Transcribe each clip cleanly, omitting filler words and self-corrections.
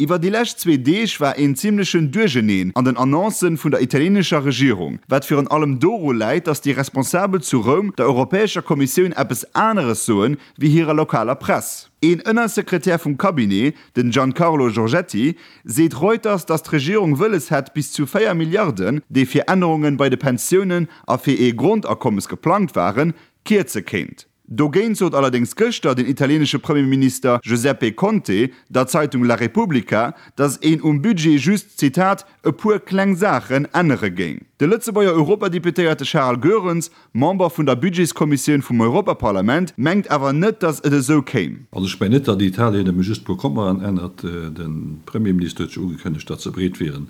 Iwwer déi lescht zwee Deeg war een zimmlechen Duercheneen an den Annoncen vun der italienescher Regierung, wat virun allem doru läit, datt déi Responsabel zu Roum der Europäescher Kommissioun eppes aneres soen, wéi hirer lokaler Press. Een Ënnersekretär vum Cabinet, den Giancarlo Giorgetti, seet Reuters, datt d'Regierung wëlles hätt, bis zu 4 Milliarden, déi fir Ännerunge bei de Pensiounen a fir ee Grondakommes geplangt waren, kierze kéint. Dogéint sot allerdéngs gëschter den italienesche Premierminister Giuseppe Conte der Zeitung La Repubblica, datt een um Budget just, Zitat, e puer kleng Saachen ännere géing. De Lëtzebuerger Europadeputéierte Charles Goerens Member vun der Budgetskommissioun vum Europaparlament, mengt awer net, datt et esou kéim. Also ech mengen net, datt Italien nëmme just e puer Kommaen ännert. De Premierminister huet jo ugekënnegt, datt se bereet wieren,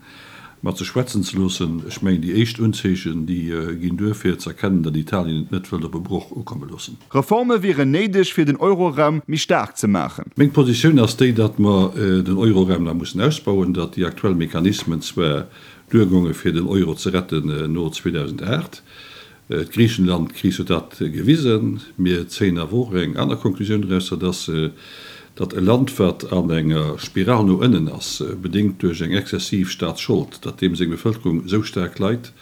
mat sech schwätzen ze loossen. Ech mengen, déi éischt Unzeechen, déi ginn duer fir ze erkennen, datt Italien et net wëllt op e Broch ukomme loossen. Reforme wieren néideg, fir den Euroraum méi staark ze maachen. Meng Positioun ass déi, datt mer den Euroraum nach mussen ausbauen, datt déi aktuell Mechanismen zwar duergonge fir den Euro ze retten no 2008. D'Griichenland-Kris huet dat gewisen. Mir zéien awer och eng aner Konklusioun draus, dat ass, datt e Land, wat an enger Spiral no ënnen ass, bedéngt duerch eng exzessiv Staatsschold, datt deem seng Bevëlkerung esou staark leit,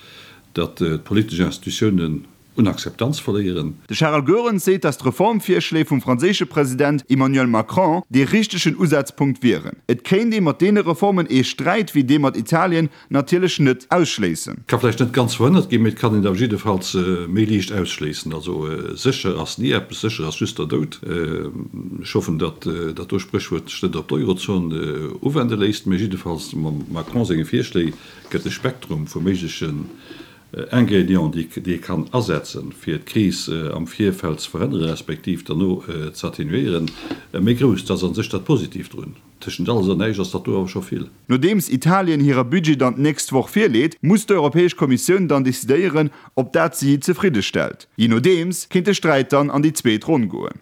datt d'politesch Institutiounen un Akzeptanz verléieren. De Charel Goerens seet, datt d'Reformvirschléi vum franséische President Emmanuel Macron dee richtegen Usazpunkt wieren. Et kéint ee mat deene Reformen ee Sträit wéi dee mat Italien natierlech net ausschléissen. Ka vläicht net ganz verhënnert ginn, mee et kann een awer jiddefalls méi liicht ausschléissen. Also sécher ass ni eppes, sécher ass just der Doud. Ech hoffen, datt dat do Spréchwuert sech net op d'Eurozon uwende léisst, mee jiddefalls mam Macron senge Virschléi gëtt de Spektrum vu méiglechen Ingrédienten, déi ee kann asetzen, fir d'Kris am Virfeld ze verhënneren, respektiv derno ze atténuéieren, méi grouss. Dat ass a sech dat Positiivt drun. Tëschent alles an näischt ass dat do awer scho vill. Nodeems Italien hire Budget dann d'nächst Woch virleet, muss d'Europäesch Kommissioun dann decidéieren, ob dat si zefridde stellt. Jee nodeems kéint de Sträit dann an déi zweet Ronn goen.